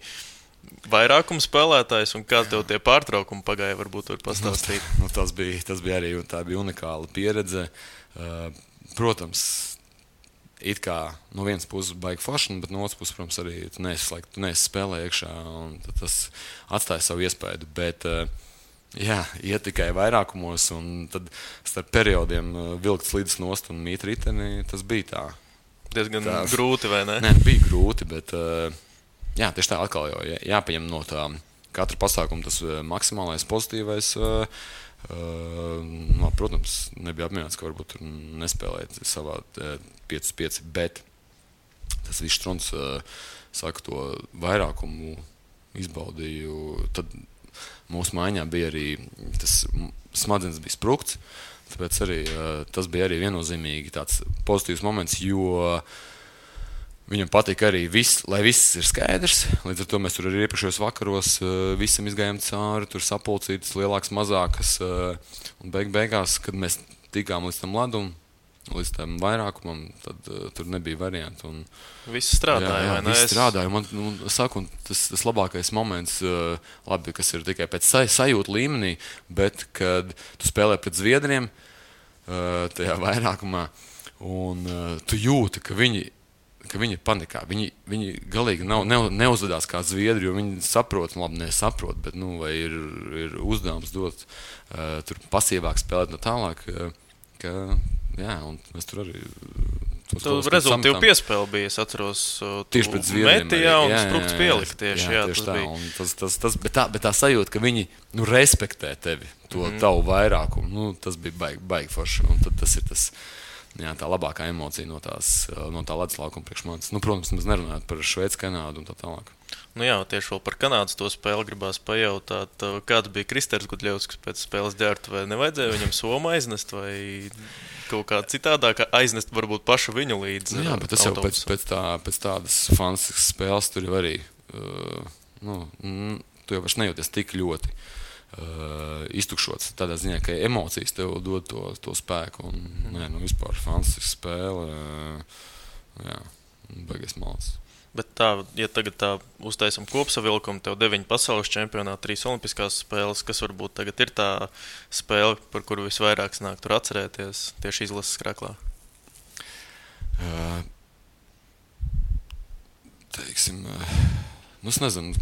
S2: vairākums spēlētājs, un kā tev tie pārtraukumi pagāja, varbūt var pastāstīt?
S3: Tas bija arī, tā bija unikāla pieredze. Protams, it kā no vienas puses baigi forši, bet no otras puses, protams, arī tu neesi spēlē iekšā, un tas atstāja savu iespēju, bet Jā, iet tikai vairākumos, un tad starp periodiem vilkt slīdes nost un mīt riteni, tas bija tā.
S2: Diezgan grūti, vai ne?
S3: Nē, bija grūti, bet jā, tieši tā atkal jau jāpaņem no tā katra pasākuma tas maksimālais pozitīvais. Protams, nebija apmierināts, ka varbūt tur nespēlēt savā 5-5, bet tas viss Štruns saka to vairākumu izbaudīju. Tad mūsu maiņā bija arī tas smadzenes bija sprukts, tāpēc arī tas bija arī viennozīmīgi tāds pozitīvs moments, jo viņam patika arī lai viss ir skaidrs. Līdz ar to mēs tur arī iepriekšējos vakaros visam izgājām cauri, tur sapulcītas lielākas, mazākas. Un beigās, kad mēs tikām līdz tam ledum, līdz tam vairākumam, tad tur nebija variantu.
S2: Viss strādāja, vai ne?
S3: Viss strādāja. Man saku, tas labākais moments, labi, kas ir tikai pēc sajūta līmenī, bet kad tu spēlē pret zviedriem tajā vairākumā, un tu jūti, ka viņi panikā. Viņi galīgi neuzvedās kā zviedri, jo viņi saprot, labi, nesaprot, bet vai ir uzdevums dot tur pasīvāk spēlēt no tālāk, jā, un mēs tur arī
S2: rezultātu piespēli bija, es atceros,
S3: tieši pret zviedriem
S2: metījā un sprukts pielikt tieši, jā, tas
S3: tā,
S2: bija.
S3: Un bet tā sajūta, ka viņi respektē tevi, to tavu vairākumu, tas bija baigi forši, un tad tas ir tas, jā, tā labākā emocija no tā ledus laukuma priekš manis. Protams, mēs nerunājam par Šveici, Kanādu un tā tālāk.
S2: Jā, tieši vēl par Kanādas to spēli gribās pajautāt, kāds bija Kristers Gudļevskis pēc spēles ģērbtu, vai nevajadzēja viņam somu aiznest, vai kaut kā citādāk aiznest varbūt pašu viņu līdz
S3: jā, bet tas
S2: autobusu.
S3: Jau pēc tādas fantastiskas spēles tur jau arī, tu jau vairs nejūties tik ļoti iztukšots. Tādā ziņā, ka emocijas tev dod to spēku. Un, vispār fantastiska spēle. Jā, baigies malas.
S2: Bet tā, ja tagad tā uztaisam kopsavilkumu, tev 9 pasaules čempionāti, 3 olimpiskās spēles, kas varbūt tagad ir tā spēle, par kuru visvairāk snāk tur atcerēties tieši izlases kraklā?
S3: Teiksim, es nezinu.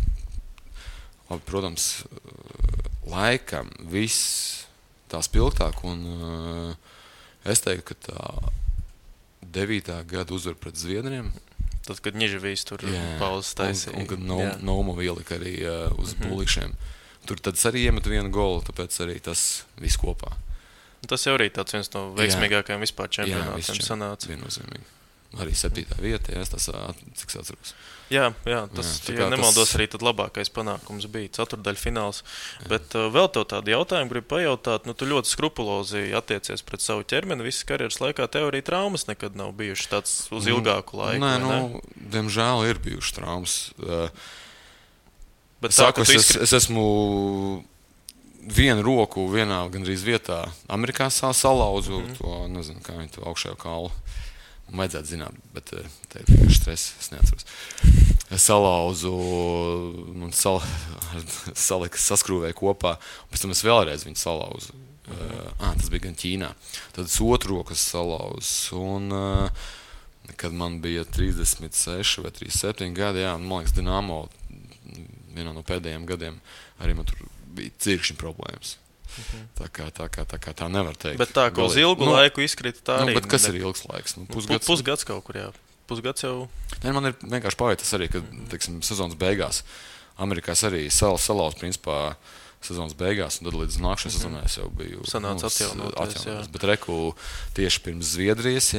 S3: Labi, protams, laikam viss tā spilgtāk, un es teiktu, ka tā 9. gada uzvar pret zviedriem.
S2: Tad, kad Ņiževīs tur pauzes taisīja.
S3: Un kad Naumo ielika arī uz būlīšiem. Tur tad arī iemet vienu golu, tāpēc arī tas viss kopā.
S2: Tas jau arī tāds viens no veiksmīgākajiem vispār čempionātiem sanāca.
S3: Viennozīmīgi. Arī 7. vieta, tas, cik es atceros.
S2: Jā, tas, ja nemaldos, arī tad labākais panākums bija ceturtdaļfināls. Bet vēl tev tādu jautājumu gribu pajautāt. Tu ļoti skrupulozi attiecies pret savu ķermeni. Visas karjeras laikā tev arī traumas nekad nav bijušas tāds uz ilgāku laiku.
S3: Nē, diemžēl ir bijušas traumas.
S2: Bet
S3: es esmu vienu roku vienā gandrīz vietā Amerikā salauzu, to nezinu, kā viņi to augšējo kaulu. Vajadzētu zināt, bet te ir vienkārši stress, es neatceros. Es salauzu, saskrūvēju kopā, un pēc tam es vēlreiz viņu salauzu. Tas bija gan Ķīnā. Tad es otru roku salauzu, un kad man bija 36 vai 37 gadi, man liekas, Dinamo, vienā no pēdējiem gadiem, arī man tur bija cirkšņi problēmas. Tā kā tā nevar teikt.
S2: Bet tā, ka uz ilgu laiku izkrita tā arī.
S3: Bet kas ir ilgs laiks?
S2: Pusgads kaut kur, jā. Pusgads jau.
S3: Nē, man ir vienkārši pavietas arī, ka, teiksim, sezonas beigās Amerikās arī salauz, principā, sezonas beigās, un tad līdz nākšanai sezonai es jau biju
S2: sanāca atjaunoties.
S3: Bet reku tieši pirms Zviedrijas,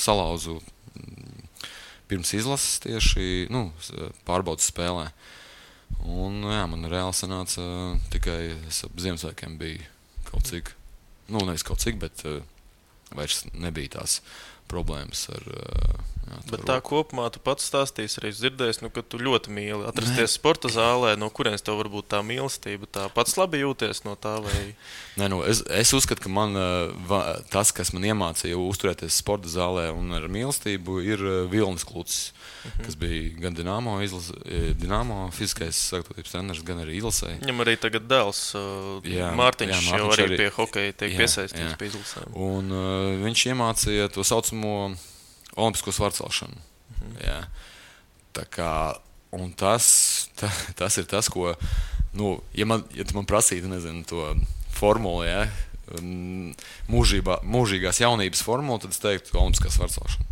S3: salauzu pirms izlases tieši, pārbaudas spēlē. Un, man reāli sanāca tikai ap Ziemassvētkiem bija kaut cik, nevis kaut cik, bet vairs nebija tās problēmas ar
S2: Bet tā kopumā tu pats stāstīsi, arī dzirdēs, ka tu ļoti mīli atrasties sporta zālē, no kurienes tev varbūt tā mīlestība, tā pats labi jūties no tā, vai?
S3: Nē, es uzskatu, ka man tas, kas man iemācīja uzturēties sporta zālē un ar mīlestību, ir Vilnis Klucis, kas bija gan Dinamo fiziskais sagatavotības treneris, gan arī izlasē.
S2: Viņam arī tagad dēls Mārtiņš jau arī pie hokeja tiek piesaistīts pie izlasēm.
S3: Un viņš iemācīja to saucamo olimpisko svarcelšanu. Tā kā, un tas ir tas, ko Ja tu man prasītu, nezinu, to formulu, ja, mūžīgās jaunības formulu, tad es teiktu olimpiskā svarcelšana.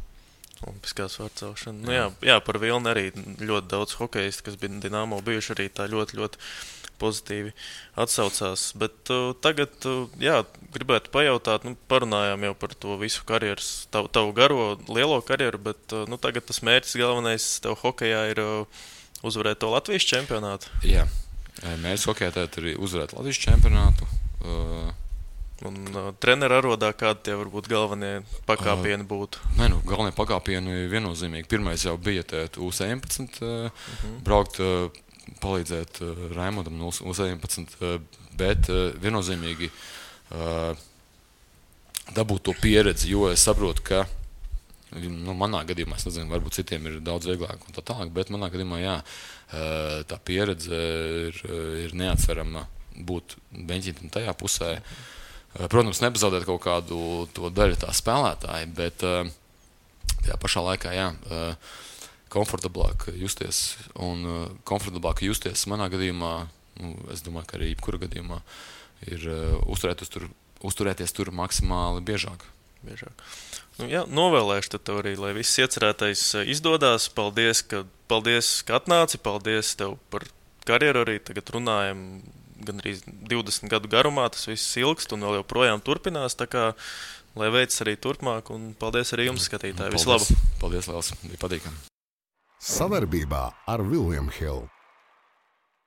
S2: Olimpiskā svarcelšana. Nu, jā, par Vilni arī ļoti daudz hokeistu, kas bija Dinamo bijuši arī tā ļoti, ļoti pozitīvi atsaucās. Bet tagad, gribētu pajautāt, parunājām jau par to visu karjeras, tavu garo, lielo karjeru, bet tagad tas mērķis galvenais tev hokejā ir uzvarēt to Latvijas čempionātu.
S3: Jā, mērķis hokejā tad ir uzvarēt Latvijas čempionātu.
S2: Un trenera arodā kādi tie varbūt galvenie pakāpieni būtu?
S3: Galvenie pakāpieni viennozīmīgi. Pirmais jau bija U17, braukt, palīdzēt Raimondam no U17, bet viennozīmīgi dabūt to pieredzi, jo es saprotu, ka manā gadījumā, es nezinu, varbūt citiem ir daudz vieglāk un tā tālāk, bet manā gadījumā, tā pieredze ir neatsverama būt beņķītam tajā pusē. Protams, nepazaudēt kaut kādu to daļu tā spēlētāji, bet tajā pašā laikā, komfortablāk justies. Un komfortablāk justies manā gadījumā, es domāju, ka arī jebkura gadījumā, ir uzturēties tur maksimāli biežāk.
S2: Novēlēšu tev arī, lai viss iecerētais izdodas. Paldies, ka atnāci, paldies tev par karjeru arī. Tagad runājam gandrīz 20 gadu garumā, tas viss ilgst un vēl joprojām turpinās, tā kā lai veids arī turpmāk, un paldies arī jums, skatītāji. Visu labu!
S3: Paldies, Lēls, bija patīkami!
S1: Savarbībā ar William Hill.